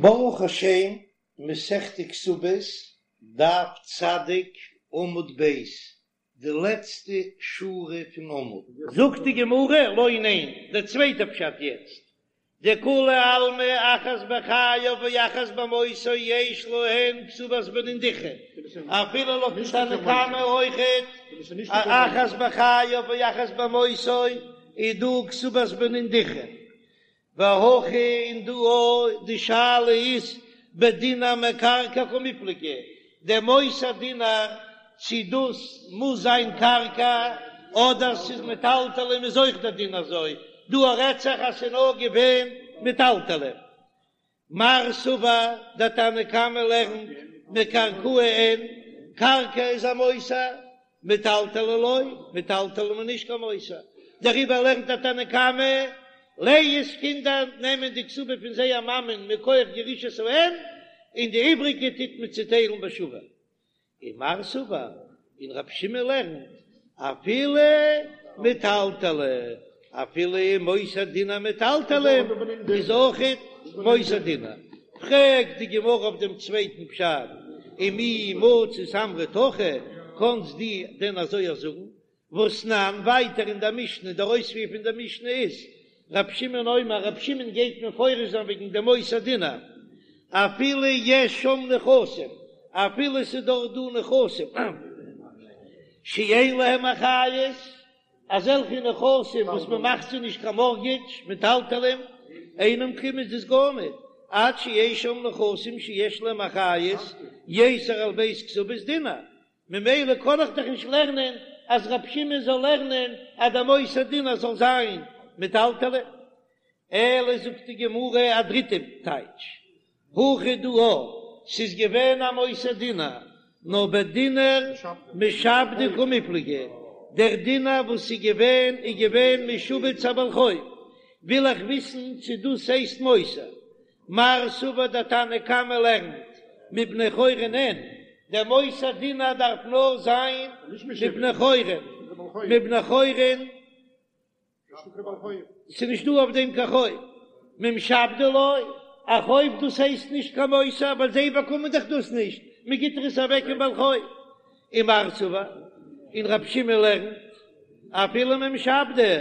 ברוך השם, מסכת כתובות, דף צדיק, עמוד ב', די לעצטע שורה פון עמוד. זאגט די גמרא, לא ניין, דער צווייטער פשט יעצט, דכולי עלמא אחת בחייו ואחת במותו יש להן כתובת בנין דכרין, אפילו לויטן תנא קמא אויכעט, אחת בחייו ואחת במותו איז דא כתובת בנין דכרין, והכא און דא אויך די שאלה איז בדינר מקרקעי קמיפלגי, דער מותר דינר צו דאס מוז זיין קרקע אדער ס'איז מטלטלין איז אויך דער דין אזוי, דא רעדט זיך אז ס'איז נאר געווען מטלטלין. מר סבר דער תנא קמא לערנט מקרקעי אין, קרקע איז א מותר, מטלטלי לא, מטלטלין איז נישט קיין מותר, דעריבער לערנט דער תנא קמא, לאה'ס קינדער נעמען די כתובה פון זייער מאמען מכח ירושת האם, און די איבריגע טוט מען צוטיילן בשווה. ומר סבר, און רב שמעון לערנט, אפילו מטלטלי, אפילו מותר דינר מטלטלין איז אויכעט מותר דינר. פרעגט די גמרא אויף דעם צווייטן פשט, ומי מצית אמרת הכי, קאנסט דו דען אזוי אויך זאגן? והתנן, ווייטער אין דער משנה, דער אויספיר פון דער משנה איז, רב שמעון אומר, רב שמעון גייט מפרש זיין וועגן דעם מותר דינר, אפילו יש שם נכסים, אפילו ס'איז דארט דא נכסים שאין להם אחריות, אזעלכע נכסים וואס מען מאכט זיי נישט קיין מארטגעדזש, מטלטלים, אינם כלום איז דאס גארניט, עד שיש שם נכסים שיש להם אחריות יתר על ב' כתובות דינר, ממילא קען איך דאך נישט לערנען אז רב שמעון זאל לערנען אז דער מותר דינר זאל זיין מטלטלין. אלא זאגט די גמרא א דריטע טייטש, הכא דא ס'איז געווען א מותר דינר, נאר בדינר משעבדי קמיפלגי, דער דינר וואס איז געווען איז געווען משועבד צו א בעל חוב, וויל איך וויסן צו דאס הייסט מותר, מר סבר דער תנא קמא לערנט מבני חורין אין, דער מותר דינר דארף נאר זיין מבני חורין, מבני חורין ס'איז נישט דא אויף דעם קיין חוב, ממשעבדי לא, א חוב דאס הייסט נישט קיין מותר ווייל זיי באקומען דאך דאס נישט, מען גיט דאך עס אוועק אין בעל חוב, ומר סבר, און רב שמעון לערנט אפילו ממשעבדי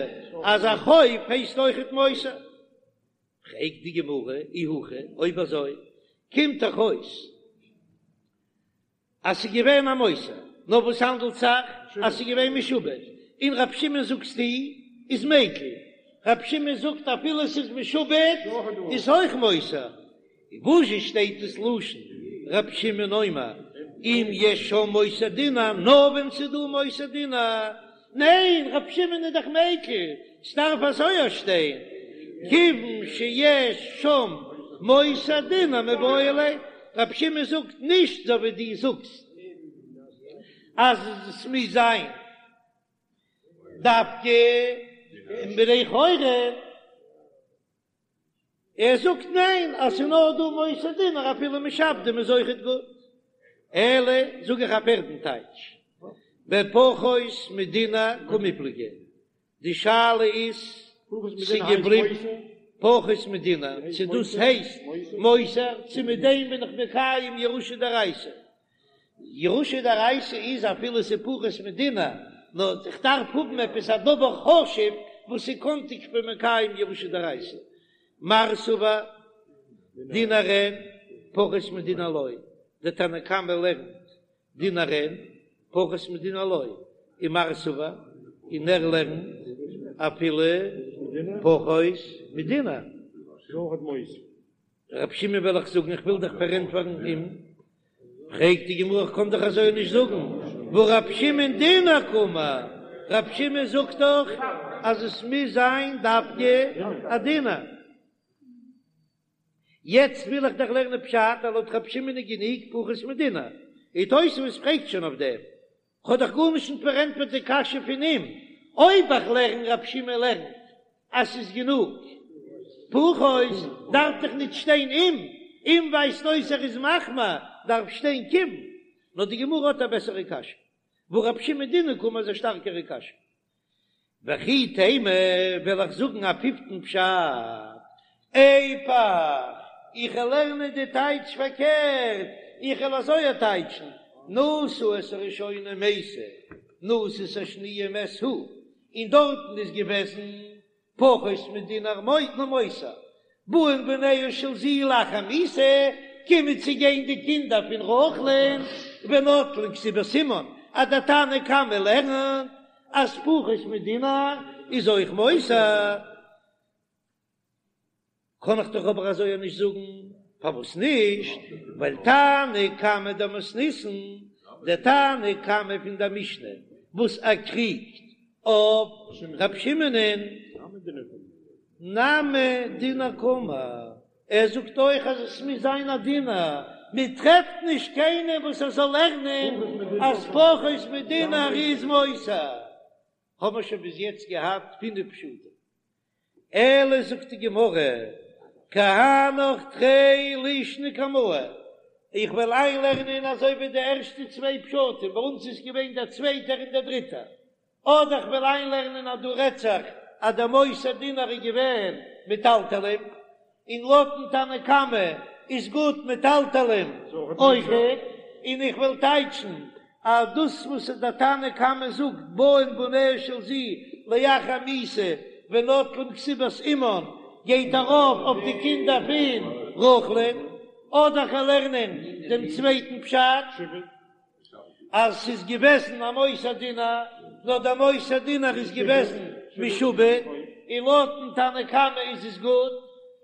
אז א חוב הייסט אויכעט מותר. פרעגט די גמרא, אי הכי, אויב אזוי קומט דאך אויס אז ס'איז געווען א מותר, נאר וואס האנדלט זיך אז ס'איז געווען משועבד, און רב שמעון זאגסטו איז מיקל, רב שמעון זאגט אפילו ס'איז משועבד איז אויך מותר, וואזשע שטייט דאס לשון רב שמעון אומר אם יש שם מותר דינר נאר ווען ס'איז דא מותר דינר, ניין רב שמעון איז דאך מיקל, ס'דארף אזוי שטיין כיוון שיש שם מותר דינר מיבעי ליה, רב שמעון זאגט נישט אזוי ווי דו זאגסט אז ס'מוז זיין דווקא בני חורין. ער זאגט ניין אז ס'איז נאר דא מותר דינר אפילו משעבדים איז אויכעט גוט, אלא זאג איך א פערטן טייטש, בפחות מדינר קמיפלגי, די שאלה איז צו געבליבן פחות מדינר צו דאס הייסט מותר צו מיט דעם בין איך מקיים ירושה דאורייתא, ירושה דאורייתא איז אפילו ס'איז פחות מדינר, נאר איך דארף האבן עפעס א דבר חשוב וואס איז קענטיג כ'בין מקיים ירושה דאורייתא. מר סבר דינר אין פחות מדינר לא, דער תנא קמא לערנט דינר אין פחות מדינר לא, ומר סבר און ער לערנט אפילו פחות מדינר. רב שמעון וועל איך זאגן, איך וויל דיך פארענטפערן אים, פרעגט די גמרא איך קען דאך אזוי נישט זאגן, והא רב שמעון דינר קאמר, רב שמעון זאגט דאך אז עס מוז זיין דווקא א דינר. יעצט וויל איך דאך לערנען פשט אז לויט רב שמעון איז גענוג פחות מדינר, און תוספות פרעגט שוין אויף דעם, כ'האב דאך גארנישט נישט פארענטפערט די קשיא פון אים, אויב איך לערן רב שמעון לערנט אז ס'איז גענוג פחות דארף דאך נישט שטיין אם, אם ווייזט אויס ער איז מחמיר דארף שטיין כיון, נאר די גמרא האט א בעסערע קשיא, והא רב שמעון דינר קאמר איז א שטארקערע קשיא. וכי תימא וועל איך זאגן א פיפטן פשט, איפוך. איך וועל לערנען די טייטש פארקערט, איך וועל אזוי טייטשן, נשא את הראשונה ומתה, נשא את השניה ומת הוא, און דארטן איז געוועזן פחות מדינר מותר, באין בניה של זו לאחר מיתה, קומען צו גיין די קינדער פון רחל'ן ונוטלין כתובת אמן, אז דער תנא קמא לערנט אז פחות מדינר איז אויך מותר. קען איך דאך אבער אזוי נישט זאגן, פארוואס נישט? ווייל תנא קמא דמתניתין, דער תנא קמא פון דער משנה וואס ער קריגט אויף ר' שמעונ'ען, נמי דינר קאמר, ער זאגט אויך אז עס מוז זיין א דינר, מען טרעפט נישט קיינעם וואס ער זאל לערנען אז פחות מדינר איז מותר, האבן מיר שוין ביז יעצט געהאט פינף פשטים. אלא זאגט די גמרא, כי הנך תרי לישני קמאי, איך וועל איינלערנען אזוי ווי די ערשטע צוויי פשטים, ביי אונז איז געווען דער צווייטער און דער דריטער, אדער איך וועל איינלערנען אז דא רעדט זיך אז דער מותר דינר איז געווען מטלטלים, און לויטן תנא קמא איז גוט מטלטלים אויכעט, און איך וועל טייטשן אז דאס וואס דער תנא קמא זאגט באין בניה של זו לאחר מיתה ונוטלין כתובת אמן גייט ארויף אויף די קינדער פון רחל'ן, אדער כ'וועל לערנען דעם צווייטן פשט. אז ס'איז געוועזן א מותר דינר, נאר דער מותר דינר איז געוועזן משועבד, און לויטן תנא קמא איז עס גוט,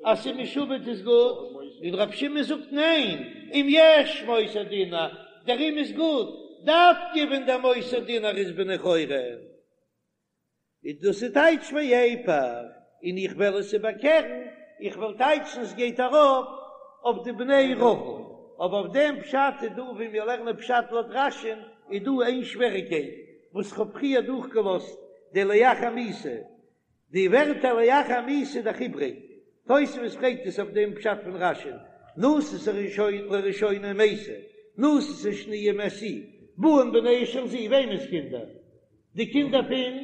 אז ס'איז משועבד איז גוט, און רבי שמעון זאגט ניין, אם יש מותר דינר, דערום איז גוט, דווקא ווען דער מותר דינר איז בני חורין. איז דאס איז טייטש ואיפוך, און איך וועל עס איבערקערן, איך וועל טייטשן עס גייט ארויף אויף די בני רחל, אבער אויף דעם פשט איז דא ווי מיר לערנען פשט לויט רש"י'ן איז דא איין שוועריקייט וואס כ'האב פריער דורכגעלאזט די לאחר מיתה, די ווערטער לאחר מיתה איז דאך איבריג, תוספות פרעגט עס אויף דעם פשט פון רש"י'ן, נשא את הראשונה ומתה, נשא את השניה ומת הוא, באין בניה של זו, וועמענס קינדער? די קינדער פון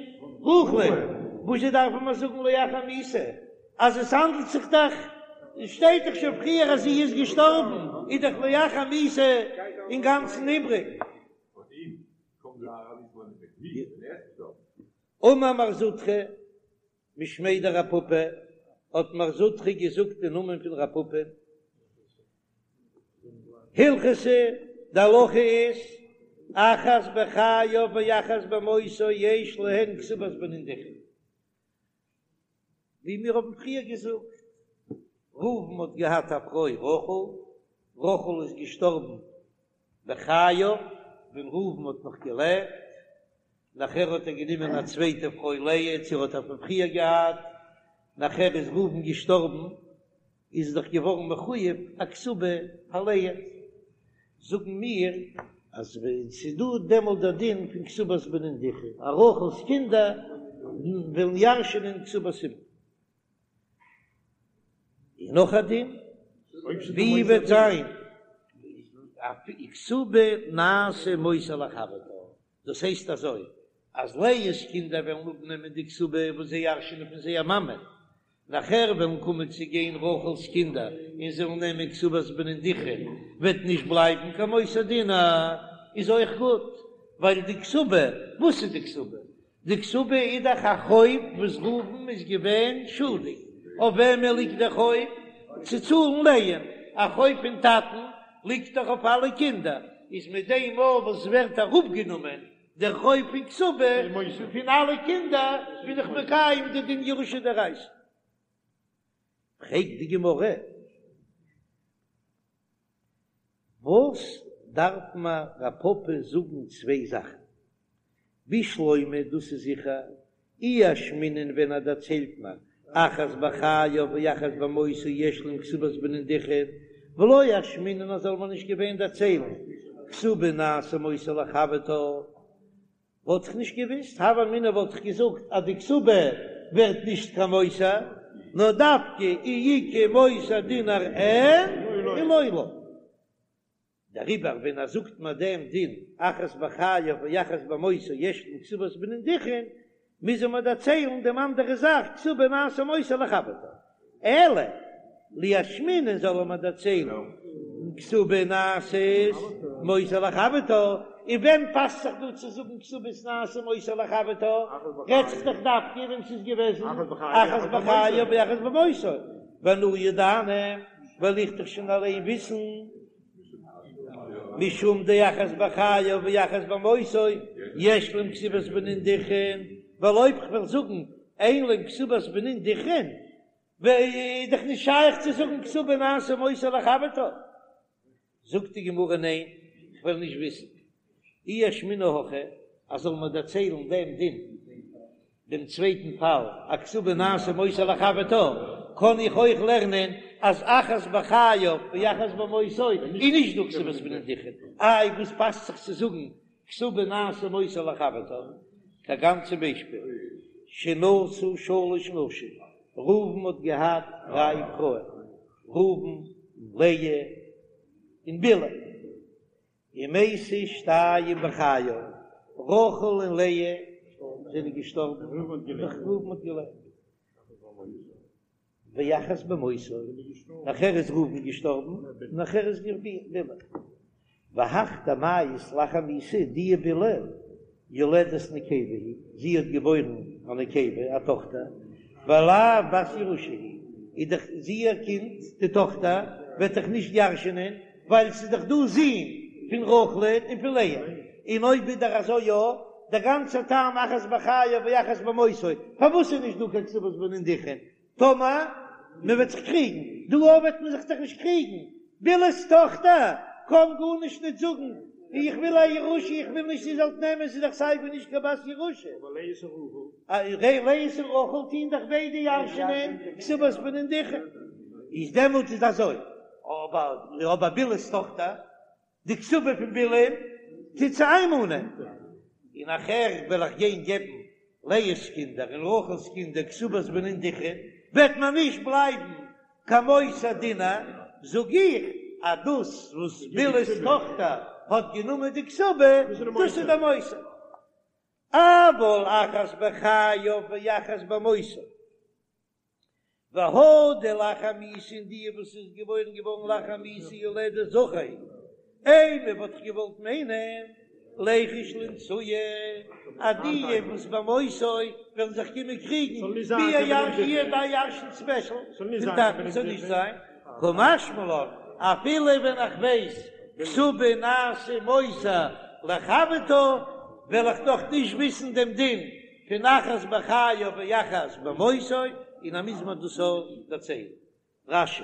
רחל'ן, וואס זשע דארפן מיר זאגן לאחר מיתה, אז עס האנדלט זיך דאך, שטייט דאך שוין פריער אז זי איז געשטארבן, איז דאך לאחר מיתה אינגאנצן איבריג. אמר מר זוטרא משמיה דרב פפא, האט מר זוטרא געזאגט אין נאמען פון רב פפא, הלכתא, די הלכה איז, אחת בחייו ואחת במותו יש להן כתובת בנין דכרין. ווי מיר האבן פריער געזאגט, ראובן האט געהאט א פרוי רחל, רחל איז געשטארבן בחייו, ווען ראובן האט נאך געלעבט, נאכער האט ער גענומען א צווייטע פרוי לאה, צו ער האט איר פון פריער געהאט, נאכער איז ראובן געשטארבן, איז דאך געווארן מחויב א כתובה פאר לאה, זאגן מיר אז ווען ס'איז דא דעמאלט דער דין פון כתובת בנין דכרין, אז רחל'ס קינדער וועלן ירש'ענען כתובת אמן. און נאך א דין, ווי וועט זיין א כתובה נעשה מותר לחברתה, דאס הייסט אזוי, אז לאה'ס קינדער וועלן אפנעמען די כתובה וואס זיי ירש'ענען פון זייער מאמע, נאכער וועלן קומען צו גיין רחל'ס קינדער און זיי וועלן נעמען כתובת בנין דכרין, וועט נישט בלייבן קיין מותר דינר, איז אויך גוט, ווייל די כתובה, וואס איז די כתובה? די כתובה איז דאך א חוב וואס ראובן איז געווען שולדיג, אויף וועמען ליגט דער חוב? צו צאלן לאה'ן, א חוב פון טאטן ליגט דאך אויף אלע קינדער, איז מיט דעם מאל וואס ווערט אראפגענומען דער חוב פון כתובה פון אלע קינדער, בין איך מקיים די דין ירושה דאורייתא. פרעגט די גמרא, וואס דארף מיר רב פפא זאגן צוויי זאכן? בשלמא דאס איז זיכער, אי אשמעינן ווען ער דערציילט מיר אחת בחייו ואחת במותו יש להם כתובת בנין דכרין, ולא אשמעינן אז זאל מען נישט געווען דערציילן כתובה נעשה מותר לחברתה, וואלט איך נישט געוויסט, הוה אמינא וואלט איך געזאגט אז די כתובה ווערט נישט קיין מותר, נאר דווקא אי איכא מותר דינר אין אי לא לא. דעריבער ווען ער זאגט מיר דעם דין אחת בחייו ואחת במותו יש להם כתובת בנין דכרין, מוז ער מיר דערציילן דעם אנדערע זאך כתובה נעשה מותר לחברתה. אלא. לישמעינן זאל ער מיר דערציילן כתובה נעשית מותר לחברתה, און ווען פאסט זיך דא צו זאגן כתובות נעשה מותר לחברתה, רעדט זיך דאך דווקא ווען ס'איז געוועזן אחת בחייו ואחת במותו, ואנא ידענא, וועל איך דאך שוין אליין וויסן, משום דאחת בחייו ואחת במותו יש להם כתובת בנין דכרין, ווייל אויב כ'וועל זאגן אין להם כתובת בנין דכרין, איז דאך נישט שייך צו זאגן כתובה נעשה מותר לחברתה. זאגט די גמרא ניין, כ'וועל נישט וויסן. אי אשמעינן הכי, אז זאל מיר דערציילן דעם דין, דעם צווייטן פאל, א כתובה נעשה מותר לחברתה, קען איך אויך לערנען אז אחת בחייו ואחת במותו איז נישט דא כתובת בנין דכרין. איי וואס פאסט זיך צו זאגן כתובה נעשה מותר לחברתה, כגון צום ביישפיל, שנשא שלש נשים, ראובן האט געהאט דריי פרויען, ראובן, לאה, און בלהה, ומתו שתיים בחייו, רחל און לאה זענען געשטארבן, נאך ראובן האט געלעבט. ואחת במותו, נאכער איז ראובן געשטארבן, נאכער איז בלהה. והך דמיית לאחר מיתה, די בלהה יולדת נקבה היא, זי האט געבוירן א נקבה, א טאכטער, ולאו בת ירושה היא, איז דאך זי איר קינד, די טאכטער, וועט דאך נישט ירש'ענען, ווייל ס'איז דאך דא זין פון רחל'ען און פון לאה, און אויב איז דאך אזוי יא, דער גאנצער טעם אחת בחייו ואחת במותו, פארוואס איז נישט דא קיין כתובת בנין דכרין? טאמער מען וועט זיך קריגן, דא אויך וועט מען זיך דאך נישט קריגן, בלהה'ס טאכטער קען גארנישט נישט זאגן, איך וויל א ירושה, איך וויל נישט איר זאלט נעמען, ס'איז דאך סיי ווי נישט קיין בת ירושה. לאה און רחל טוהן דאך ביידע ירש'נען כתובת בנין דכרין, איז דעמאלט איז אזוי, אבער אבער בלהה'ס טאכטער, די כתובה פון בלהה'ן טוט זי איינמאנען, און נאכער וועל איך גיין געבן לאה'ס קינדער און רחל'ס קינדער כתובת בנין דכרין, וועט מען נישט בלייבן קיין מותר דינר, זאג איך אז דאס וואס בלהה'ס טאכטער האט גענומען די כתובה, דאס איז דער מותר. אבל אחת בחייו ואחת במותו. והא דלאחר מיתה און די וואס איז געבוירן געווארן לאחר מיתה יולדת זכר אימא וואלט איך געוואלט מיינען ליחוש לאנתויי אז די וואס במותו וועלן זיך קומען קריגן ווי איר ביי ירש'ן ספעשל פון טאטן זאל נישט זיין קא משמע לן אפילו ווען איך ווייס כתובה נעשה מותר לחברתה וועל איך דאך נישט וויסן דעם דין פון אחת בחייו ואחת במותו, און אז מוז מען דאס אויך דערציילן. רש"י.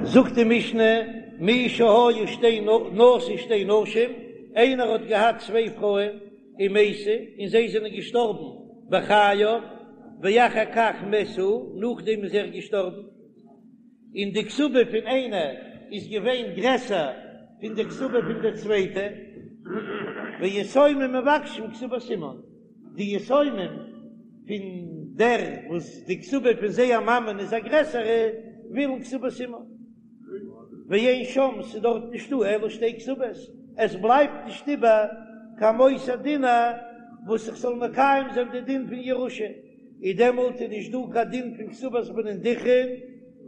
זאגט די משנה, מי שהיו שתי נשא שתי נשים, איינער האט געהאט צוויי פרויען ומתו, און זיי זענען געשטארבן בחייו, ואחר כך מת הוא, נאכדעם איז ער געשטארבן, און די כתובה פון איינע איז געווען גרעסער פון די כתובה פון די צווייטע, ויתומים מבקשים כתובת אמן, די יתומים פון דער וואס די כתובה פון זייער מאמען איז א גרעסערע, ווילן כתובת אמן, ואין שם, ס'איז דארט נישטא אלא שתי כתובות, עס בלייבט נישט איבער קיין מותר דינר וואס איך זאל מקיים זיין די דין פון ירושה. איז דעמאלט איז נישט דא קיין דין פון כתובת בנין דכרין,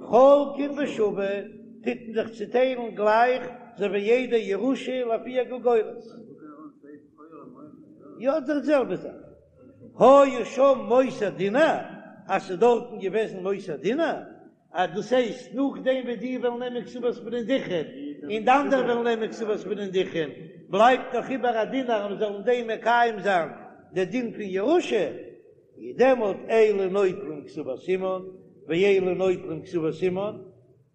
חולקין בשווה, טוט מען זיך צוטיילן גלייך אזוי ווי יעדע ירושה לפי הגולגולת. יא די זעלבע זאך. היה שם מותר דינר, אז ס'איז דארטן געוועזן מותר דינר, אז דאס הייסט נאכדעם ווי די וועלן נעמען כתובת בנין דכרין און די אנדערע וועלן נעמען כתובת בנין דכרין, בלייבט נאך איבער א דינר אז מ'זאל אין דעם מקיים זיין די דין פון ירושה, איז דעמאלט אלו נוטלים כתובת אמן ואלו נוטלים כתובת אמן,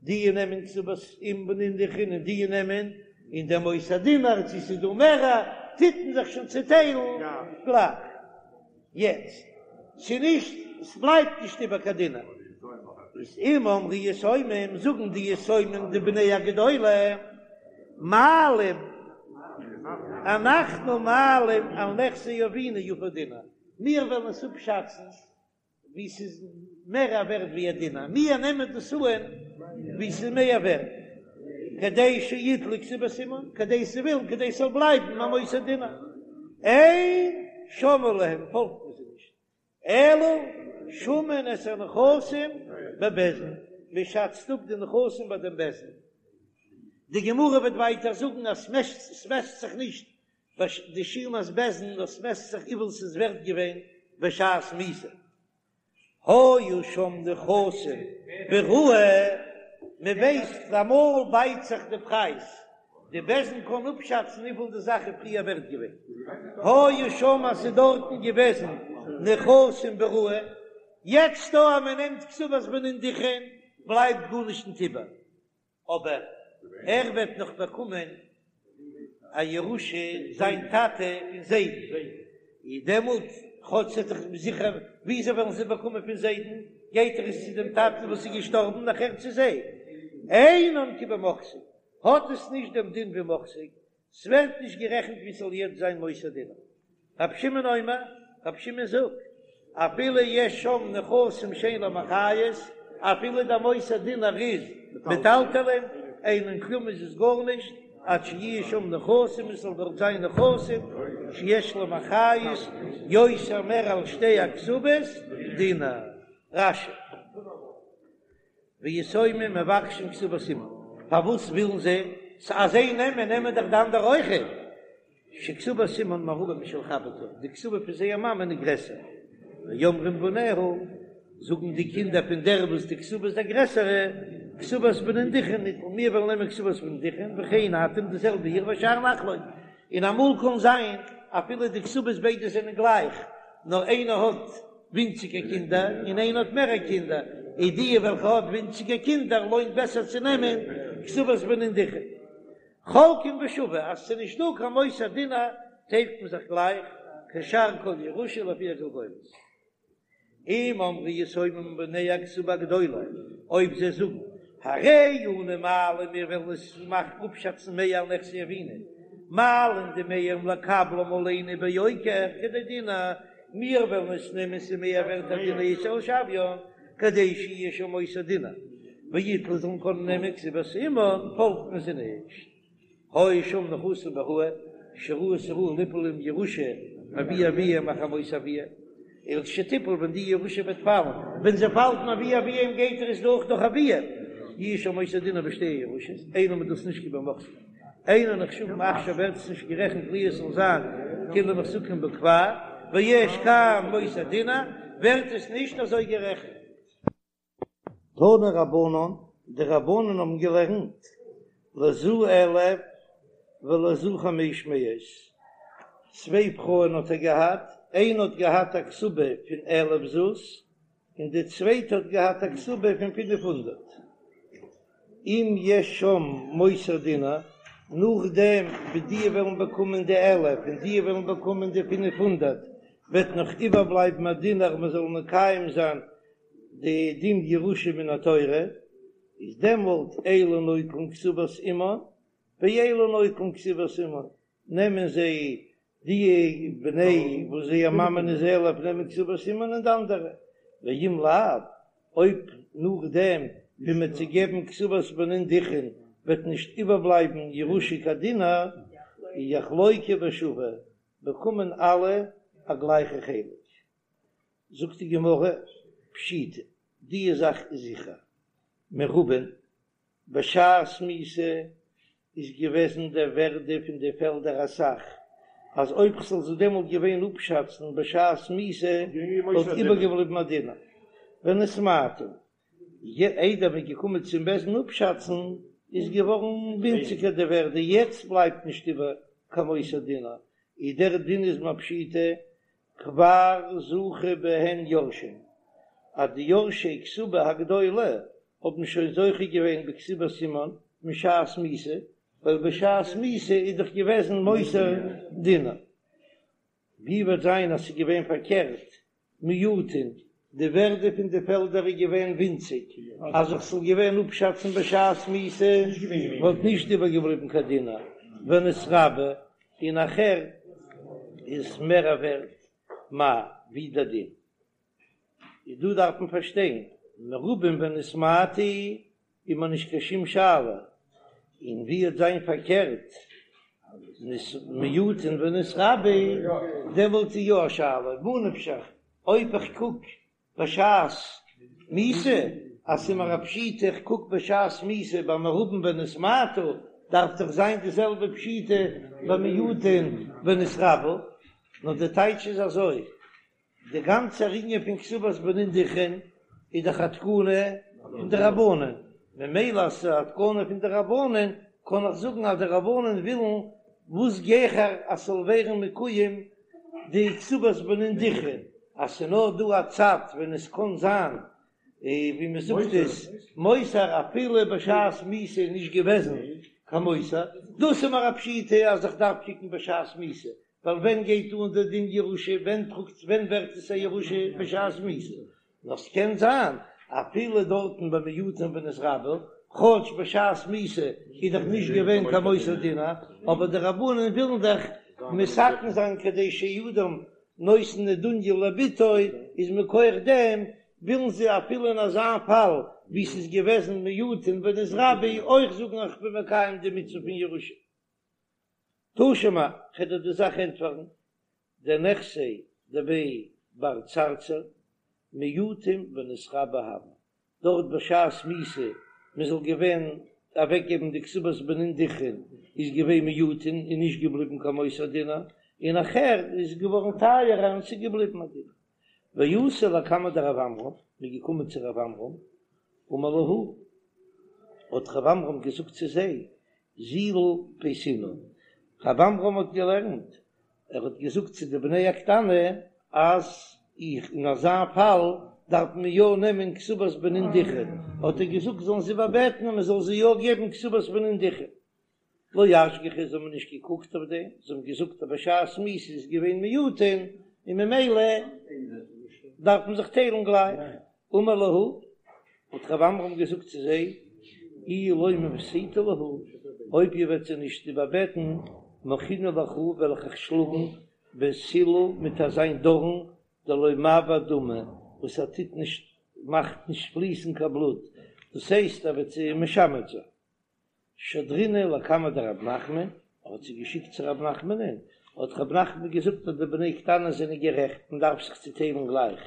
די נעמען כתובת אם בנין דכרין און די נעמען און דער מותר דינר צו ס'איז דא מערער טוט מען זיך שוין צוטיילן גלייך. יעצט, ס'נישט, ס'בלייבט נישט איבער קיין דינר. איז אם אמרו יתומים, זאגן די יתומים די בני הגדולה, מעלים, אנחנו מעלים על נכסי אבינו יפה דינר, מיר וועלן עס אפשאצן ווי ס'איז מער א ווערט ווי א דינר, מיר נעמען דאס אן ווי ס'איז מער ווערט, כדי שיטלו כתובת אמן, כדי זיי ווילן כדי ס'זאל בלייבן א מותר דינר, אין שומעין להם פאלגט מען זיי נישט, אלא שמין את הנכסים בבית דין, מען שאצט אפ די נכסים ביי דעם בית דין. די גמרא וועט ווייטער זאגן אז ס'מעסט זיך נישט די שומת בית דין, נאר ס'מעסט זיך וויפיל ס'איז ווערט געווען בשעת מיתה. היו שם נכסים בראוי, מען ווייסט אמאל בייט זיך די פרייז, די בית דין קען אפשאצן וויפיל די זאך איז פריער ווערט געווען, היו שם אז ס'איז דארטן געוועזן נכסים בראוי, יעצט דא אז מען נעמט כתובת בנין דכרין בלייבט גארנישט נישט איבער, אבער ער וועט נאך באקומען א ירושה זיין טאטע פון זיידן, און דעמאלט כאטש ס'איז דאך זיכער וויאזוי וועלן זיי באקומען פון זיידן, גייט ער עס צו דעם טאטן וואס איז געשטארבן נאכער צו זיי, אינן כבמוחזק, האט עס נישט דעם דין ווי מוחזק, ס'ווערט נישט גערעכנט ווי ס'זאל יעצט זיין מותר דינר. רבי שמעון אומר, רבי שמעון זאגט, אפילו יש שם נכסים שאין להם אחריות, אפילו דער מותר דינר איז מטלטלין, אינן כלום איז עס גארנישט, עד שיהיו שם נכסים, עס זאל דארט זיין נכסים שיש להם אחריות יותר מער על שתי הכתובות דינר. רש"י. ויתומים מבקשים כתובת אמן, פארוואס ווילן זיי? ס'אז זיי נעמען, נעמען דאך די אנדערע אויכעט. שכתובת אמן מרובה משל חברתה, די כתובה פון זייער מאמען איז גרעסער. ואומרים בניה, זאגן די קינדער פון דער וואס די כתובה איז די גרעסערע, כתובת בנין דכרין ניטול, מיר וועלן נעמען כתובת בנין דכרין, וכן אתם די זעלבע איר והשאר נחלוק. און אמאל קען זיין אפילו די כתובות ביידע זענען גלייך, נאר איינער האט ווינציגער קינדער און איינער האט מערער קינדער, איז די וועלכע האט ווינציגער קינדער לוינט בעסער צו נעמען כתובת בנין דכרין. חולקין בשווה, אז ס'איז נישט דא קיין מותר דינר טיילט מען זיך גלייך, כשאר כל ירושה לפי הגולגולת. אם אמרו יתומים בני הכתובה הגדולה, אויב זיי זאגן, הרי אנו מעלים מיר וועלן עס מאכן אפשאצן מער על נכסי אבינו, מעלין דמיהם לקבלם עלינו ביוקר כדי דינר, מיר וועלן עס נעמען ס'איז מער ווערט א דינר יתר על שוויין, כדי שיהיה שם מותר דינר, ויטלו זאלן קענען נעמען כתובת אמן, פאלגט מען זיי נישט. היו שם נכסים בראוי, שראוי ס'ראוי ליפול להם ירושה מאבי אביהם אחר מות אביהם, ולכשתיפול ווען די ירושה וועט פאלן, ווען זי פאלט מאבי אביהם גייט ער עס דורך דורך אביהם, יהיה שם מותר דינר בשתי הירושות, אינן איז דאס נישט כבמוחזק, אינן נחשבים עכשיו ווערט עס נישט גערעכנט להיות ס'זאל זיין כאילו מוחזקים בו כבר, ויש כאן מותר דינר, ווערט עס נישט אזוי גערעכנט. תנו רבנן, די רבנן האבן געלערנט, לזו אלף ולזו חמש מאות, צוויי פרויען האט ער געהאט, איינע האט געהאט א כתובה פון אלף זוז, און די צווייטע האט געהאט א כתובה פון פינף הונדערט. אם יש שם מותר דינר, נאכדעם ווי די וועלן באקומען די אלף און די וועלן באקומען די פינף הונדערט, וועט נאך איבערבלייבן א דינר מען זאל מקיים זיין די דין ירושה מן התורה, איז דעמאלט אלו נוטלין כתובת אמן ואלו נוטלין כתובת אמן, נעמען זיי די בני וואס זייער מאמען איז אלף נעמען כתובת אמן און די אנדערע, ואם לאו, אויב נאכדעם ווי מען וועט זיי געבן כתובת בנין דכרין וועט נישט איבערבלייבן ירושה קיין דינר, יחלוקו בשווה, באקומען אלע א גלייכע חלק. זאגט די גמרא, פשיטא, די זאך איז זיכער, מרובין, בשעת מיתה איז געוועזן דער ווערדע פון די פעלדער אסאך, אז אויב כ'זאל זיי דעמאלט געווען אפשאצן בשעת מיתה וואלט איבערגעבליבן א דינר. ונתמעטו, איידער מ'איז געקומען צום בית דין אפשאצן איז געווארן ווינציגער די ווערדע, יעצט בלייבט נישט איבער קיין מותר דינר, איז דער דין איז מיר פשיטא כבר זכו בהן יורשים, אז די יורשי כתובה הגדולה האבן שוין זוכה געווען בכתובת אמן משעת מיתה, ווייל בשעת מיתה איז דאך געוועזן מותר דינר. ווי וועט זיין אז ס'איז געווען פארקערט, מועטין, די ווערדע פון די פעלדער איז געווען ווינציג, אז איך זאל געווען אפשאצן בשעת מיתה וואלט נישט איבערגעבליבן קיין דינר, ונתרבו, און נאכער איז מער ווערט מאי ווי דער דין איז דא דארף מען פארשטיין מרובים ונתמעטו איז מיר נישט קיין שום שאלה און ווי וועט זיין פארקערט מועטין ונתרבו דעמאלט איז יא א שאלה מה נפשך אויב איך קוק בשעת מיתה. אז ס'איז מיר א פשיטא איך קוק בשעת מיתה ביי מרובין ונתמעטו, דארף דאך זיין די זעלבע פשיטא ביי מועטין ונתרבו, נאר די טייטש איז אזוי, די גאנצע ענין פון כתובת בנין דכרין איז דאך א תקנה פון די רבנן, ממילא אז ס'איז א תקנה פון די רבנן קען איך זאגן אז די רבנן ווילן וואס גיכער אז ס'זאל ווערן מקוים די כתובת בנין דכרין, אז ס'איז נאר דא א צד ווען עס קען זיין ווי מ'זאגט עס מותר אפילו בשעת מיתה איז נישט געוועזן קיין מותר, דאס איז מיר א פשיטא אז איך דארף קוקן בשעת מיתה, ווייל ווען גייט אן דער דין ירושה, ווען טראגט ווען ווערט עס א ירושה בשעת מיתה, נאר ס'קען זיין אפילו דארטן ביי מועטין ונתרבו, כאטש בשעת מיתה איז דאך נישט געווען קיין מותר דינר, אבער די רבנן ווילן דאך מתקן זיין כדי שאין אדם נותן נדוניא לבתו, איז מכח דעם ווילן זיי אפילו אין אזא פאל ווי ס'איז געוועזן מועטין ונתרבו אויך זאגן איך בין מקיים די מצוה פון ירושה. תא שמע, כ'וועל דיר די זאך ענטפערן, דנכסי דבי בר צרצור מועטין ונתרבו הוו, דארט בשעת מיתה מען זאל געווען אוועקגעבן די כתובת בנין דכרין איז געווען מועטין און נישט געבליבן קיין מותר דינר, און נאכער איז געווארן טייערער און ס'איז געבליבן א דינר. ואתו לקמיה דרב עמרם, מ'איז געקומען צו רב עמרם, אמר להו, האט רב עמרם געזאגט צו זיי, זילו פייסינהו, רב עמרם האט געלערנט, ער האט געזאגט צו די בני הקטנה אז איך אין אזא פאל דארף מען יא נעמען כתובת בנין דכרין, האט ער געזאגט זאלן זיי איבערבעטן אז מען זאל זיי יא געבן כתובת בנין דכרין. לא אשגחו, זיי האבן נישט געקוקט אויף דעם, זיי האבן געזאגט אז בשעת מיתה איז געווען מועטין און ממילא דארף מען זיך טיילן גלייך. אמר להו, האט רב עמרם געזאגט צו זיי, אי לא מפייסתו להו, אויב איר וועט זיי נישט איבערבעטן, מחינא לכו, וועל איך אייך שלאגן בסילא מיט אזיין דארן דלא מעבר דמא, וואס ער טוט נישט, מאכט נישט פליסן קיין בלוט, דאס הייסט ער וועט זיי משמד זיין. שדרינהו לקמיה דרב נחמן, ער האט זיי געשיקט צו רב נחמנ'ען, האט רב נחמן געזאגט אז די בני קטנה זענען גערעכט, מען דארף זיך צוטיילן גלייך.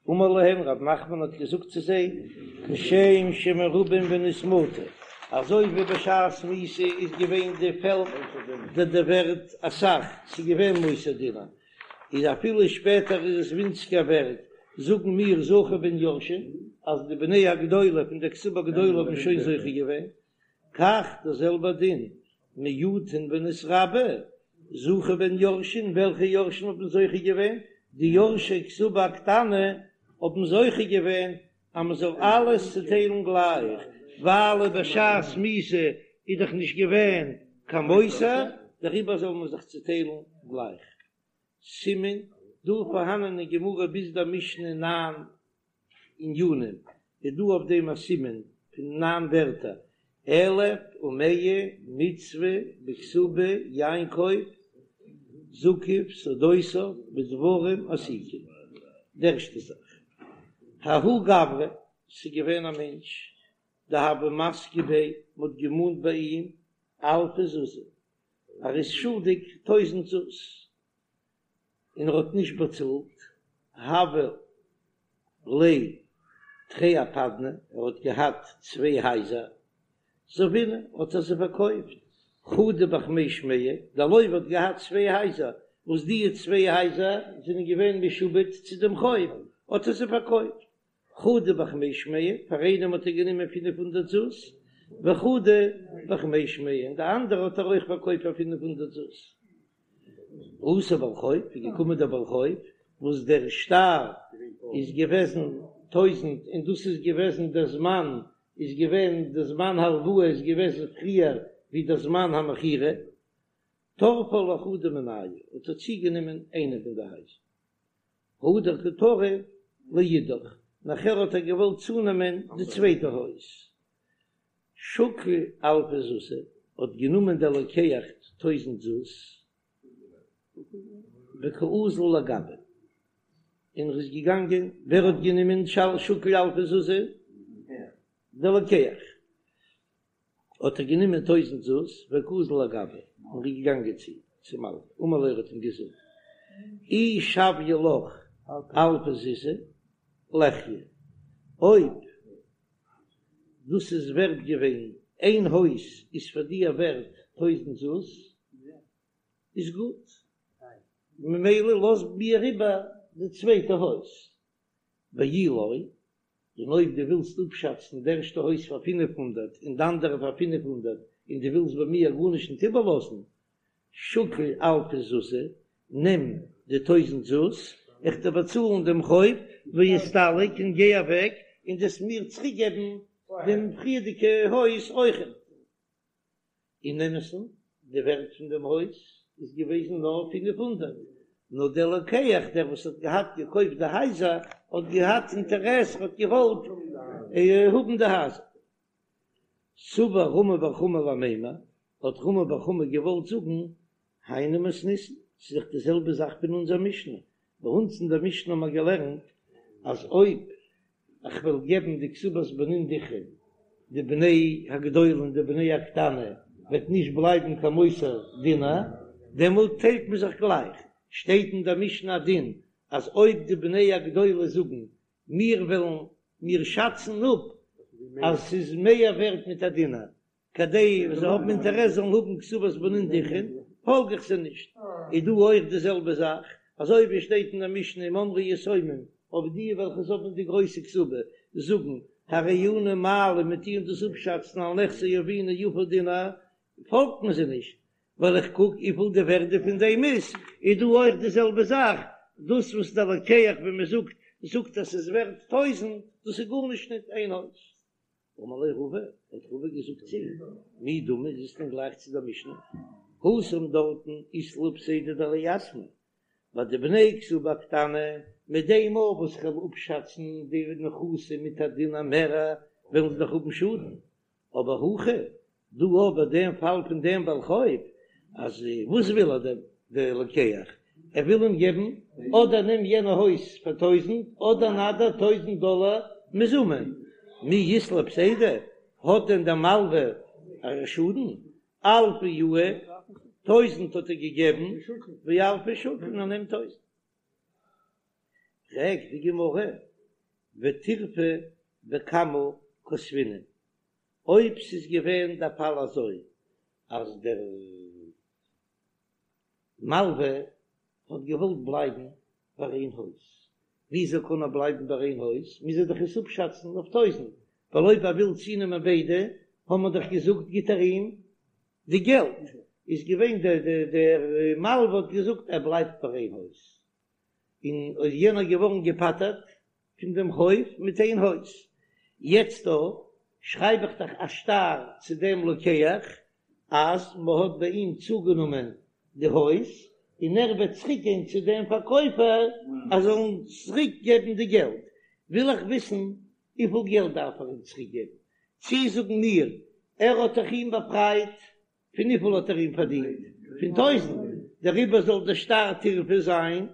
אמר להם, רב נחמן האט געזאגט צו זיי, כשם שמרובין ונתמעטו, אזוי ווי בשעת מיתה איז געווען די פעלד די די ווערט אסאך, ס'איז געווען מותר דינר, איז אפילו שפעטער איז עס ווינציגער ווערט, זאגן מיר זכו בהן יורשין, אז די בני הגדולה פון די כתובה גדולה האבן שוין זוכה געווען, כך דער זעלבער דין, מועטין ונתרבו, זכו בהן יורשין, וועלכע יורשים האבן זוכה געווען? די יורשי כתובה קטנה האבן זוכה געווען אז מען זאל אלעס צוטיילן גלייך, ווייל בשעת מיתה איז דאך נישט געווען קיין מותר, דעריבער זאל מען זיך צוטיילן גלייך. סימן, דא פארהאנען אין גמרא ביז דער משנה ניין ענינים, איז דא אויף דעם א סימן פון ניין ווערטער, אלף ומאה מצוה בכתובה יעקב זקף שדותיו בדברים עתיקים, די ערשטע זאך, ההוא גברא, ס'איז געווען א מענטש, דהוו מסקי ביה, מ'האט געמאנט ביי אים אלפא זוזי, ער איז שולדיג טויזענט זוז, און ער האט נישט באצאלט, הוו ליה תרי אפדני, ער האט געהאט צוויי הייזער, זבינהו האט ער זיי פארקויפט, חדא בחמש מאה, דער לוה האט געהאט צוויי הייזער, וואס די צוויי הייזער זענען געווען משועבד צו דעם חוב, האט ער זיי פארקויפט, חדא בחמש מאה, פאר איינעם האט ער גענומען פינף הונדערט זוז, וחדא בחמש מאה, און די אנדערע האט ער אויך פארקויפט פאר 500 זוז. אתא בעל חוב, איז געקומען דער בעל חוב, וואס דער שטר איז געוועזן טויזנט, און דאס איז געוועזן דער זמן, איז געווען די זמן הלוואה איז געוועזן פריער ווי דער זמן המכירה, טרפה לחדא מינייהו, האט ער צוגענומען איינע פון די הייזער. הדר קא טריף לאידך, נאכער האט ער געוואלט צונעמען די צווייטע הויז. שקל אלפא זוזי, האט גענומען דער לוקח טויזנט זוז, וקאזיל לגביה, און ער איז געגאנגען, ווער האט גענומען שקל אלפא זוזי? דער לוקח. האט ער גענומען טויזנט זוז וקאזיל לגביה און איז געגאנגען צו צום מלווה, אמר ליה ער האט אים געזאגט, אי שויא לך אלפא זוזי ליחיא, אויב. דאס איז ווערט געווען, איין הויז איז פאר דיר ווערט טויזענט זוז, איז גוט, ממילא לאז מיר איבער די צווייטע הויז, ואי לא, און אויב דו ווילסט אפשאצן די ערשטע הויז פאר 500 און די אנדערע פאר 500 און דו ווילסט ביי מיר גארנישט ניט איבערלאזן, שקיל אלפא זוזי, נעם די טויזענט זוז, איך דיר באצאלן דעם חוב, ואסתלק און גיי אוועק, און דו'סט מיר צוריקגעבן דעם פריערדיגע הויז אויכעט. אין אמת'ן, די ווערט פון דעם הויז איז געוועזן נאר 500, נאר דער לוקח, דער וואס האט געהאט געקויפט די הייזער, האט געהאט אינטערעס, ער האט געוואלט האבן די הייזער. סבר רמי בר חמא למימר, האט רמי בר חמא געוואלט זאגן, היינו מתניתין, ס'איז דאך די זעלבע זאך פון אונזער משנה, ביי אונז אין דער משנה האבן מיר געלערנט אז אויב איך וועל געבן די כתובת בנין דכרין, די בני הגדולה און די בני הקטנה, וועט נישט בלייבן קיין מותר דינר, דעמאלט טיילט מען זיך גלייך. שטייט אין דער משנה א דין אז אויב די בני הגדולה זאגן מיר וועלן מיר שאצן אפ אז ס'איז מער ווערט מיט א דינר, כדי זיי האבן אינטערעס זאלן האבן כתובת בנין דכרין, פאלג איך זיי נישט. איז דא אויך די זעלבע זאך, אזוי ווי עס שטייט אין די משנה אם אמרו יתומים, אויב די וועלכע האבן די גרויסע כתובה זאגן הרי אנו מעלים מיר טוען דאס אפשאצן על נכסי אבינו יפה דינר, פאלגט מען זיי נישט, ווייל איך קוק וויפיל די ווערדע פון דעם איז, איז דא אויך די זעלבע זאך, דאס וואס דער לוקח ווי מען זאגט זאגט אז ס'איז ווערט טויזענט, דאס איז גארנישט ניט איין הויז. אמר ליה רבא, האט רבא געזאגט צו אים, מי דמי, איז עס דען גלייך צו דער משנה? התם דארטן אית להו פסידא דליתמי, ביי די בני כתובה קטנה, מיט דעם מאל וואס איך וועל אפשאצן די נכסים מיט א דינר מערער, וועלן זיי דאך האבן שאדן, אבער הכא, דא אבער דעם פאל פון דעם בעל חוב, אז וואס וויל ער דער דער לוקח? ער וויל אים געבן אדער נעם יענע הויז פאר טויזענט אדער נא דיר טויזענט דאלער מזומן, מי אית ליה פסידא, האט דען דער מלווה א שאדן? אלפא יהיב, טויזענט האט ער געגעבן, ואלפא שקיל און ער נעמט טויזענט. פרעגט די גמרא, וטירפא בכמה כתבינן, אויב ס'איז געווען דער פאל אזוי אז דער מלווה האט געוואלט בלייבן ביי איין הויז, וויאזוי קען ער בלייבן ביי איין הויז? מוז ער דאך עס אפשאצן אויף טויזענט, ווייל אויב ער וויל צונעמען ביידע, האבן מיר דאך געזאגט גיט ער אים די געלט, איז געווען דער דער מלווה האט געזאגט ער בלייבט ביי איין הויז, און איז יענער געווארן געפטר'ט פון דעם חוב מיט איין הויז, יעצט דא שרייב איך דאך א שטר צו דעם לוקח אז מען האט ביי אים צוגענומען די הויז, און ער וועט צוריק גיין צו דעם פארקויפער אז זאל אים צוריק געבן די געלט, וויל איך וויסן וויפיל געלט דארף ער אים צוריק געבן, צי זאגן מיר ער האט דאך אים באפרייט פון וויפיל האט ער אים פארדינט? פון טויזענט, דעריבער זאל דער שטר טירפא זיין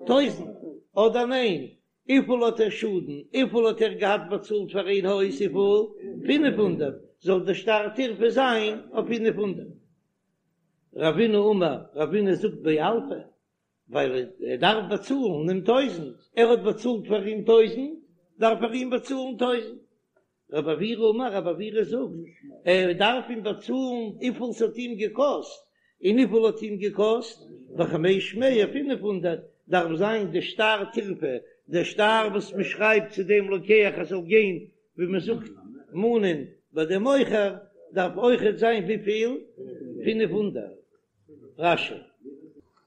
טויזענט, אדער ניין? וויפיל האט ער שאדן? וויפיל האט ער געהאט באצאלט פאר איין הויז? וויפיל? 500, זאל דער שטר טירפא זיין אויף 500. רבינא אמר, רבינא זאגט באלפא, ווייל ער דארף באצאלן אים טויזענט, ער האט באצאלט פאר אים טויזענט, דארף ער אים באצאלן טויזענט. רב עוירא אמר, רב עוירא זאגט, ער דארף אים באצאלן וויפיל ס'האט אים געקאסט, און וויפיל האט אים געקאסט? בחמש מאה, 500, דארף זיין די שטר טירפא, דער שטר וואס מען שרייבט צו דעם לוקח ער זאל גיין ווי מען זאגט מאנען ביי דעם מוכר, דארף אויכעט זיין וויפיל? 500. רש"י.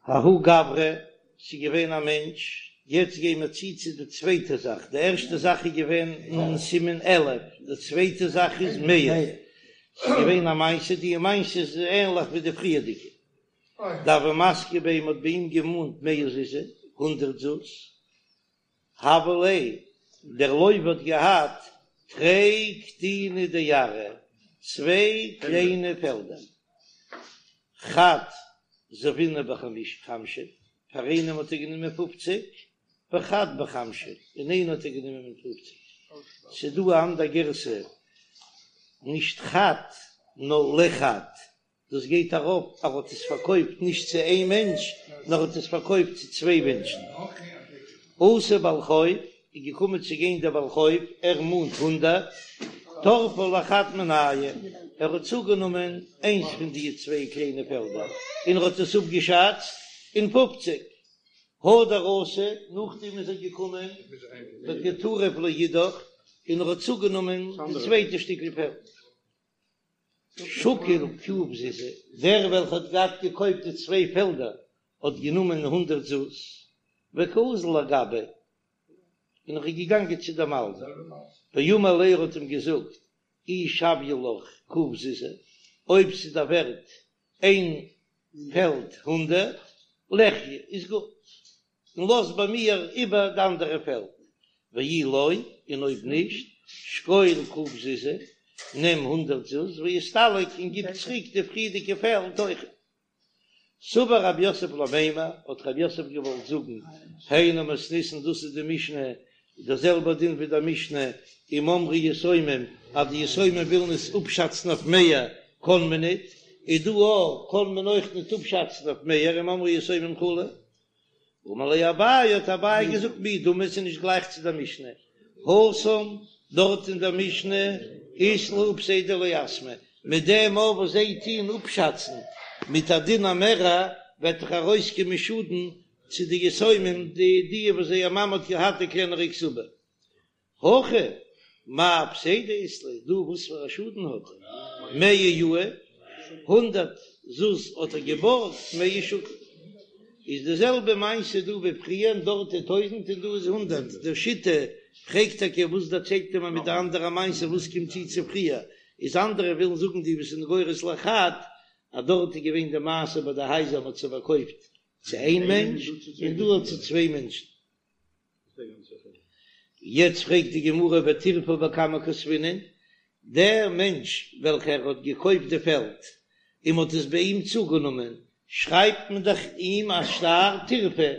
ההוא גברא, ס'איז געווען א מענטש, יעצט גייען מיר צו צו די צווייטע זאך, די ערשטע זאך איז געווען אין סימן אלף, די צווייטע זאך איז מאה, ס'איז געווען א מעשה, די מעשה איז ענליך ווי די פריערדיגע, דהוו מסקי ביה, מ'האט ביי אים געמאנט מאה זוזי, הונדערט זוז, הוה ליה, דער לוה האט געהאט תרי קטיני דארעא, צוויי קליינע פעלדער, חד זבינהו בחמשין, פאר איינעם האט ער גענומען פופציג, וחד בחמשין, און איינער האט ער גענומען מיט פופציג. ס'איז דא א אנדער גירסא, נישט חד, נאר לחד, דאס גייט ארויף אז ער האט עס פארקויפט נישט צו איין מענטש, נאר ער האט עס פארקויפט צו צוויי מענטשן. אתא בעל חוב, איז געקומען צו גיין דער בעל חוב, ער מאנט הונדערט. טרפא לחד מינייהו, ער האט צוגענומען איינס פון די צוויי קליינע פעלדער און ער האט עס אפגעשאצט אין פופציג. הדר אתא, נאכדעם איז ער געקומען וקא טריף לאידך און ער האט צוגענומען די צווייטע שטיקל פעלד. שקיל ק' זוזי, דער וועלכער האט געהאט געקויפט די צוויי פעלדער האט גענומען הונדרעט זוז, וקאזיל לגביה, און ער איז געגאנגען צו דעם מלווה, ואמר ליה ער האט אים געזאגט, אי שוויא לך ק' זוזי, אויב ס'איז דער ווערט איין פעלד הונדרעט, לחיי, איז גוט, און לאז ביי מיר איבער די אנדערע פעלד, ואי לא, און אויב נישט, שקול ק' זוזי, נעם הונדרעט זוז, ואסתלק און גיב צוריק די פריערדיגע פעלד אויכעט. סבר רב יוסף למימר, האט רב יוסף געוואלט זאגן, היינו מתניתין דאס איז די משנה, דער זעלבער דין ווי דער משנה, אם אמרו יתומים, אז די יתומים ווילן עס אפשאצן אויף מאה, קען מען ניט, איז דא אויך, קען מען אויך ניט אפשאצן אויף מאה, אם אמרו יתומים כו'. אמר ליה אביי, האט אביי געזאגט מי דמי ס'איז נישט גלייך צו דער משנה, התם, דארט אין דער משנה אית להו פסידא ליתמי, מיט דעם אויף וואס זיי טוען אפשאצן מיט א דין א מערער, וועט דאך ארויסקומען שאדן צו די יתומים די די וואס זייער מאמע האט געהאט די קלענערע כתובה. הכא מאי פסידא אית ליה, דא וואס פאר א שאדן האט ער? מאה יהיב, הונדרעט זוז האט ער געבארגט, מאה שקיל. איז די זעלבע מעשה דא ווי פריער, דארט איז טויזנט און דא איז הונדרעט, דער שיטה פרעגט טאקע וואס דערציילט ער מיר מיט די אנדערע מעשה וואס קומט צו צו פריער, איז אנדערע ווילן זאגן די וואס זענען גורס לחד אז דארט איז געווען די מעשה ביי די הייזער מען האט זיי פארקויפט צו איין מענטש און דא האט צו צוויי מענטשן. יעצט פרעגט די גמרא וטירפא בכמה כתבינן, דער מענטש וועלכער האט געקויפט די פעלד און מען האט עס ביי אים צוגענומען, שרייבט מען דאך אים א שטר טירפא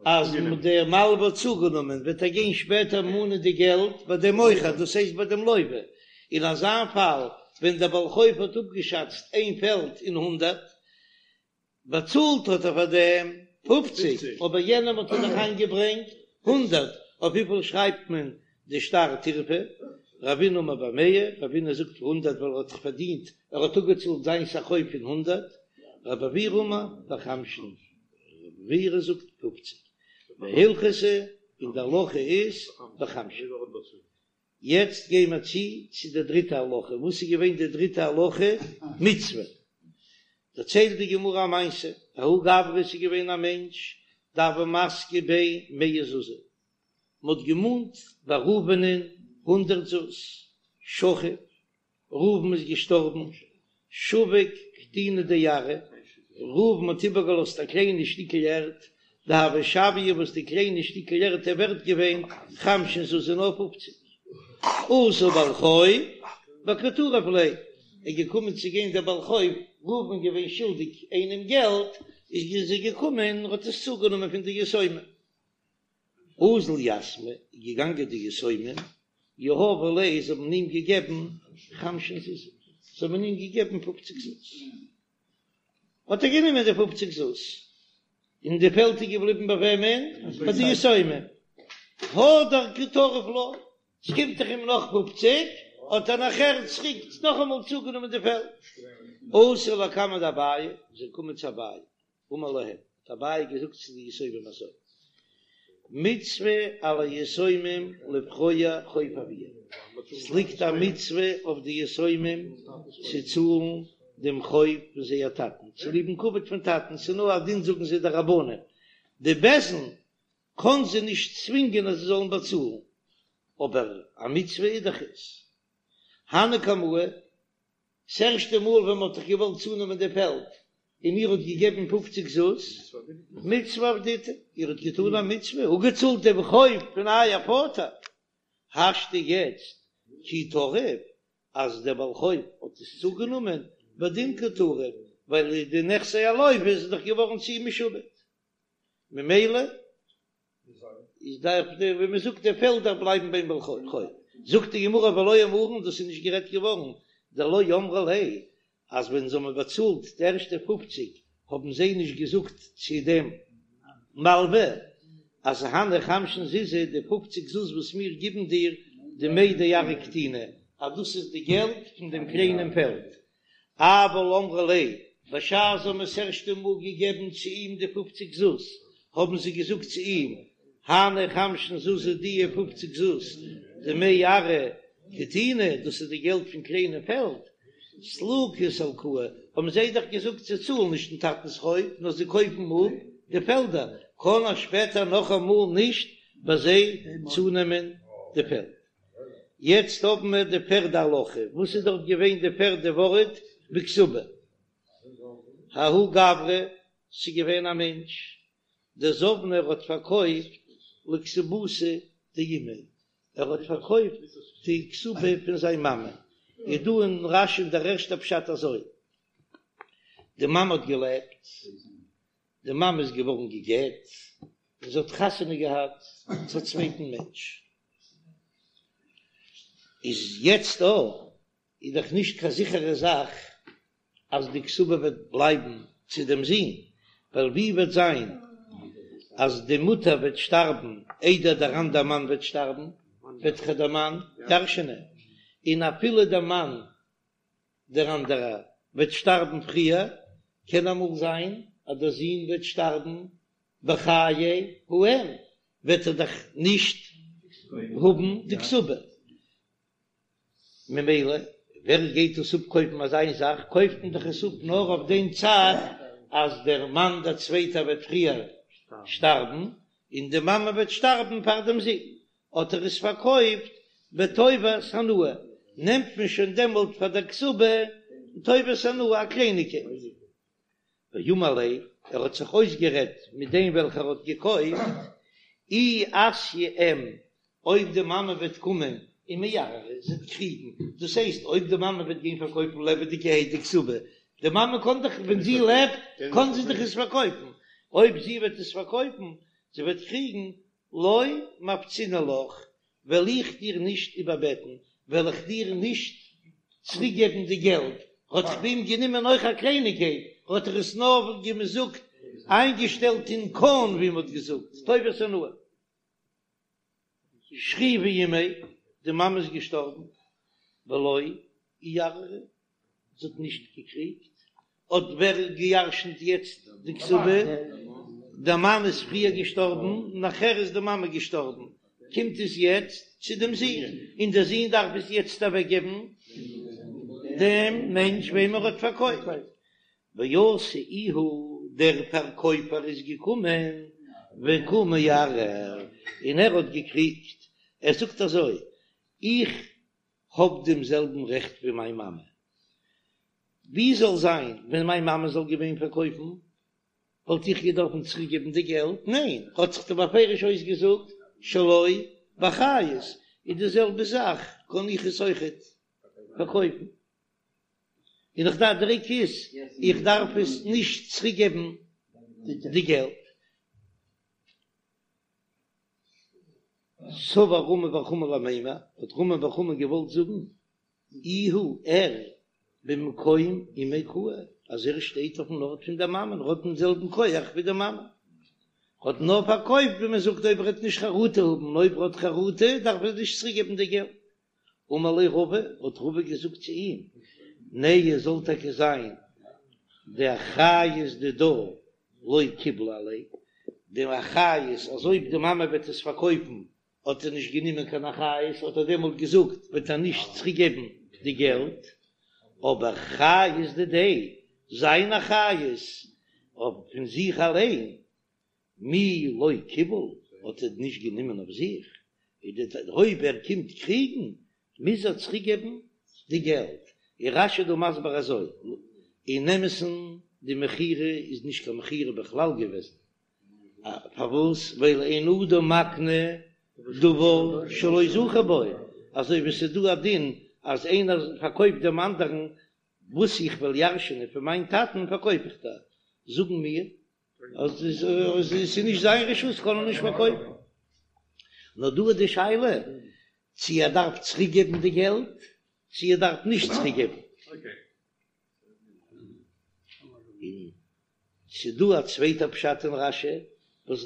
אז דער מלווה האט צוגענומען, וועט ער גיין שפעטער מאנען די געלט ביי דעם מוכר, דאס הייסט ביי דעם לווה. אין אזא פאל ווען דער בעל חוב האט אפגעשאצט איין פעלד אין הונדרעט, באצאלט האט ער פאר דעם פופציג, אבער יענעם האט ער דאך איינגעברענגט הונדרעט, אויף וויפיל שרייבט מען די שטר טירפא? רבינא אמר במאה, רבינא זאגט הונדרעט ווייל ער האט דאך פארדינט, ער האט אפגעצאלט זיינס א חוב פון הונדרעט, רבי עוירא אמר בחמשין, רבי עוירא זאגט פופציג, והלכתא און די הלכה איז בחמשין. יעצט גיי מיר צו צו די דריטע הלכה, וואס איז געווען די דריטע הלכה? מצוה. דערציילט די גמרא א מעשה, ההוא גברא ס'איז געווען א מענטש דהוו מסקי ביה מאה זוזי, מ'האט געמאנט ביי ראובנ'ען הונדרעט זוז, שכיב, ראובן איז געשטארבן, שביק קטינא דארעא, ראובן האט איבערגעלאזט א קליינע שטיקל ערד, דהוה שויא וואס די קליינע שטיקל ערד איז ווערט געווען חמשין זוזי נאר פופציג. אתא בעל חוב וקא טריף ליה, איז געקומען צו גיין דער בעל חוב, ראובן געווען שולדיג איינעם געלט, איז ער געקומען און האט עס צוגענומען פון די יתומים. אזול יתמי, איז געגאנגען די יתומים, יהבו ליה, זיי האבן אים געגעבן חמשין זוזי, זיי האבן אים געגעבן פופציג זוז, האט ער גענומען די פופציג זוז, און די פעלד איז געבליבן ביי וועמען? ביי די יתומים. הדר קא טריף לה, ס'קומט דאך אים נאך פופציג, האט ער נאכער צוריק נאכאמאל צוגענומען די פעלד. אתו לקמיה דאביי, זיי קומען צו אביי, אמר להם, האט אביי געזאגט צו די יתומים אזוי, מצוה על היתומים לפרוע חוב אביהם, ס'ליגט א מצוה אויף די יתומים צו צאלן דעם חוב פון זייער טאטן, צוליב'ן כבוד פון טאטן, ס'איז נאר א דין זאגן זיי די רבנן, די בית דין קען זיי נישט צווינגען אז זיי זאלן באצאלן, אבער א מצוה איז דאך עס. הני קמאי, ס'ערשטע מאל ווען מ'האט דאך געוואלט צונעמען די פעלד און איר האט געגעבן פופציג זוז, מצוה עבדיתו, איר האט געטאן א מצוה, אפגעצאלט דעם חוב פון אייער פאטער, השתא יעצט כי טריף, אז דער בעל חוב האט עס צוגענומען, בדין קא טריף, ווייל די נכסי הלוה איז דאך געווארן צו אים משועבד, ממילא איז דארף דער ווי מען זאגט די פעלדער בלייבן ביים בעל חוב. זאגט די גמרא ולא אמרן דאס איז נישט גערעדט געווארן דלא אמרו ליה אז ווען זיי האבן באצאלט די ערשטע פופציג האבן זיי נישט געזאגט צו דעם מלווה אז הני חמשין זוזי די פופציג זוז וואס מיר גיבן דיר דמי דארעא קטינא. אז דאס איז די געלט פון דעם קליינעם פעלד. אבל אמרו ליה, בשעת זיי האבן עס ערשטע מאל געגעבן צו אים די פופציג זוז, האבן זיי געזאגט צו אים, הני חמשין זוזי דיע פופציג זוז, דמי ארעא קטינא, דאס איז די געלט פון קליינע פעלד, סלוקי סלקוה, האבן זיי דאך געזאגט זיי צאלן נישט דעם טאטנ'ס חוב, נאר זיי קויפן אפ די פעלדער, קען ער שפעטער נאכאמאל נישט ביי זיי צונעמען די פעלד. יעצט האבן מיר די פערדע הלכה, וואס איז דארט געווען די פערדע ווארט בכתובה? ההוא גברא, ס'איז געווען א מענטש, דזבנה ער האט פארקויפט לכתובתה דאימיה, ער האט פארקויפט די כתובה פון זיין מאמע, איז דא אין רש"י דער ערשטער פשט אזוי, די מאמע האט געלעבט, די מאמע איז געווארן גע'גט, און זי האט חתונה געהאט צו א צווייטן מענטש, איז יעצט דא איז דאך נישט קיין זיכערע זאך אז די כתובה וועט בלייבן צו דעם זון, ווייל ווי וועט זיין אז די מוטער וועט שטארבן איידער דער אנדער מאן וועט שטארבן, וועט דאך דער מאן ירש'נען, און אפילו דער מאן דער אנדערער וועט שטארבן פריער, קען אמאל זיין אז דער זון וועט שטארבן בחיי האם, וועט ער דאך נישט האבן די כתובה, ממילא ווער גייט עס אפקויפן אזא איין זאך, קויפט מען דאך עס אפ נאר אויף דעם צד אז דער מאן דער צווייטער וועט פריער שטארבן, און די מאמע וועט שטארבן פאר דעם זון, האט ער עס פארקויפט בטובת הנאה, נעמט מען שוין דעמאלט פאר דער כתובה טובת הנאה א קלייניגקייט. ואמר ליה, ער האט זיך אויסגערעדט מיט דעם וועלכער האט געקויפט, אי אתיא אם, אויב די מאמע וועט קומען ומערערא, זי וועט קריגן, דאס הייסט אויב די מאמע וועט גיין פארקויפן לעבעדיגערהייט די כתובה, די מאמע קען דאך ווען זי לעבט קען זי דאך עס פארקויפן, אויב זי וועט עס פארקויפן, זי וועט קריגן, לא מפצינא לך, וועל איך דיר נישט איבערבעטן, וועל איך דיר נישט צוריקגעבן די געלט, האט דאך ביי אים גענומען אויך א קלייניגקייט, האט ער עס נאר ווי מען זאגט איינגעשטעלט אין קאן ווי מען האט געזאגט טובת הנאה. שכיבא אימיה, די מאמע איז געשטארבן, ולא איערערא, זי האט נישט געקריגט, האט ווער געירשנט יעצט די כתובה? דער מאן איז פריער געשטארבן, נאכער איז די מאמע געשטארבן, קומט עס יעצט צו דעם זון, און דער זון דארף עס יעצט אוועקגעבן דעם מענטש וועם ער האט פארקויפט. ואתא איהו, דער פארקויפער איז געקומען, וקא מערער, און ער האט געקריגט, ער זאגט אזוי, איך האב דעם זעלבן רעכט ווי מיין מאמע. ווי זאל זיין ווען מיין מאמע זאל געווען פארקויפן, וואלט איך געדארפן צוריקגעבן די געלט? ניין, האט זיך דאך בפירוש אויסגעזאגט שלא באחריות, איז די זעלבע זאך קען איך עס אויכעט פארקויפן, און איך דארף דער עיקר איז איך דארף עס נישט צוריקגעבן די געלט. סבר רמי בר חמא למימר, האט רמי בר חמא געוואלט זאגן, איהו ער במקום אימיה קאי, אז ער שטייט אויפן ארט פון דער מאמען, ער האט דעם זעלבן כח ווי די מאמע, האט נאר פארקויפט ווי מען זאגט אויב ער וועט נישט חרטה האבן, און אויב ער האט חרטה דארף ער נישט צוריק געבן די געלט. אמר ליה רבא, האט רבא געזאגט צו אים, נהי זאל טאקע זיין דאחריות דידה לא קיבלה עליה, די אחריות אז אויב די מאמע וועט עס פארקויפן האט ער נישט גענומען קיין אחריות, האט ער דעמאלט געזאגט וועט ער נישט צוריק געבן די געלט, אבער חיות דידיה, זיין אחריות אויף פון זיך אליין, מי לא קיבל, האט ער נישט גענומען אויף זיך, אויב ער קומט קריגן מוז ער צוריק געבן די געלט, און רש"י דא מסביר אזוי, אין אמת'ן די מכירה איז נישט קיין מכירה בכלל געוועזן, פארוואס ווייל אין אדם מקנה דבר שלא זכה בו, אזוי ווי ס'איז דא א דין אז איינער פארקויפט דעם אנדערן וואס איך וועל ירש'ענען פון מיין טאטן פארקויף איך דיר, זאגן מיר אז עס איז נישט זיין רשות קען ער נישט פארקויפן. נאר דא איז די שאלה צו ער דארף צוריק געבן די געלט צו ער דארף נישט צוריק געבן. און ס'איז דא א צווייטע פשט אין רש"י וואס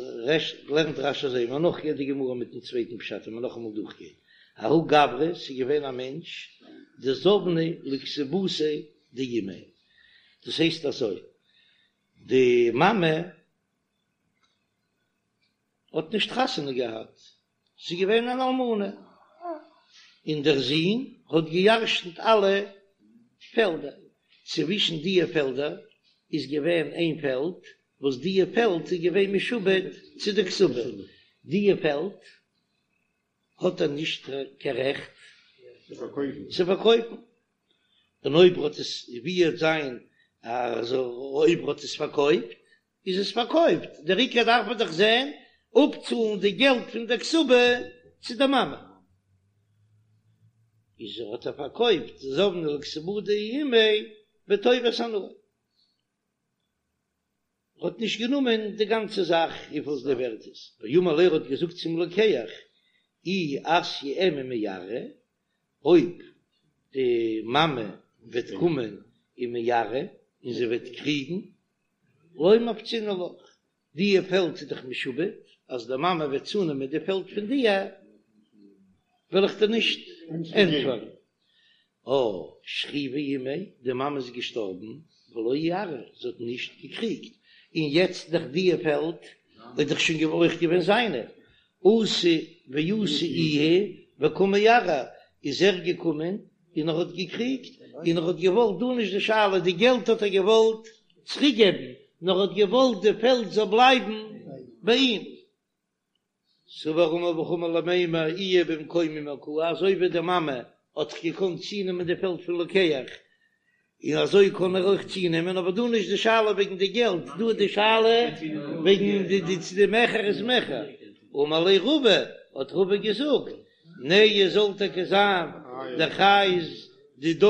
לערנט רש"י אזוי, מ'וועט נאכגיין די גמרא מיטן צווייטן פשט און מ'וועט נאכאמאל דורכגיין. ההוא גברא, ס'איז געווען א מענטש. דזבנה לכתובתיה דאימיה, דאס הייסט אזוי, די מאמע האט נישט חתונה געהאט, זי איז געווען אן אלמנה, און דער זון האט געירשנט אלע פעלדער, צווישן דיע פעלדער איז געווען איין פעלד וואס דיע פעלד איז געווען משועבד צו די כתובה, דיע פעלד האט ער נישט קיין רעכט צו פארקויפן, און אויב ער האט עס ווי וועט זיין אז אויב ער האט עס פארקויפט איז עס פארקויפט, דער עיקר דארף מען דאך זען אפצאלן די געלט פון דער כתובה צו די מאמע, איז ער האט ער פארקויפט זבנה לכתובה דאימיה בטובת הנאה. האט נישט גענומען די גאנצע זאך וויפיל די ווערט איז, ואמר ליה ער האט געזאגט צום לוקח אי אתיא אם ומערערא, אויב די מאמע וועט קומען ומערערא און זי וועט קריגן, לא מפצינא לך, דיע פעלד איז דאך משועבד, אז די מאמע וועט צונעמען די פעלד פון דיר, וועל איך דיר נישט ענטפערן. אה, שכיבא אימיה, די מאמע איז געשטארבן, ולא איערערא, זי האט נישט געקריגט, און יעצט דאך דיע פעלד איז דאך שוין אויך געווען זיינע, אתא ואתא איהו וקא מערער, איז ער געקומען און ער האט געקריגט, און ער האט געוואלט, דא נישט די שאלה, די געלט האט ער געוואלט צוריק געבן, נאר ער האט געוואלט די פעלד זאל בלייבן ביי אים. סבר רמי בר חמא למימר איהו במקום אמה קאי, אזוי ווי די מאמע האט זיך געקאנט צונעמען די פעלד פון לוקח, און אזוי קען ער אויך צונעמען, אבער דא נישט די שאלה וועגן די געלט, דא איז די שאלה וועגן די די צו די מכר איז מכר. אמר ליה רבא, האט רבא געזאגט, נהי זאל טאקע זיין דאחריות דידה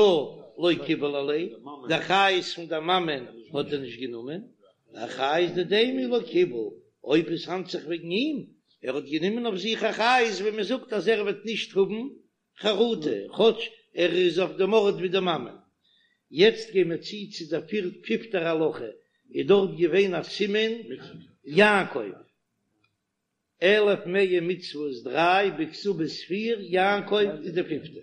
לא קיבל עליה, די אחריות פון די מאמען האט ער נישט גענומען, אחריות דידיה מי לא קיבל, אויב עס האנדט זיך וועגן אים, ער האט גענומען אויף זיך אחריות ווען מען זאגט אז ער וועט נישט האבן חרטה, כאטש ער איז אויף דעם ארט ווי די מאמע. יעצט גייען מיר צו צו דער פיפטער הלכה, איז דארט געווען א סימן יעקב, אלף מאה מצוות דריי, בכתובות פיר, יעקב איז די פיפטע.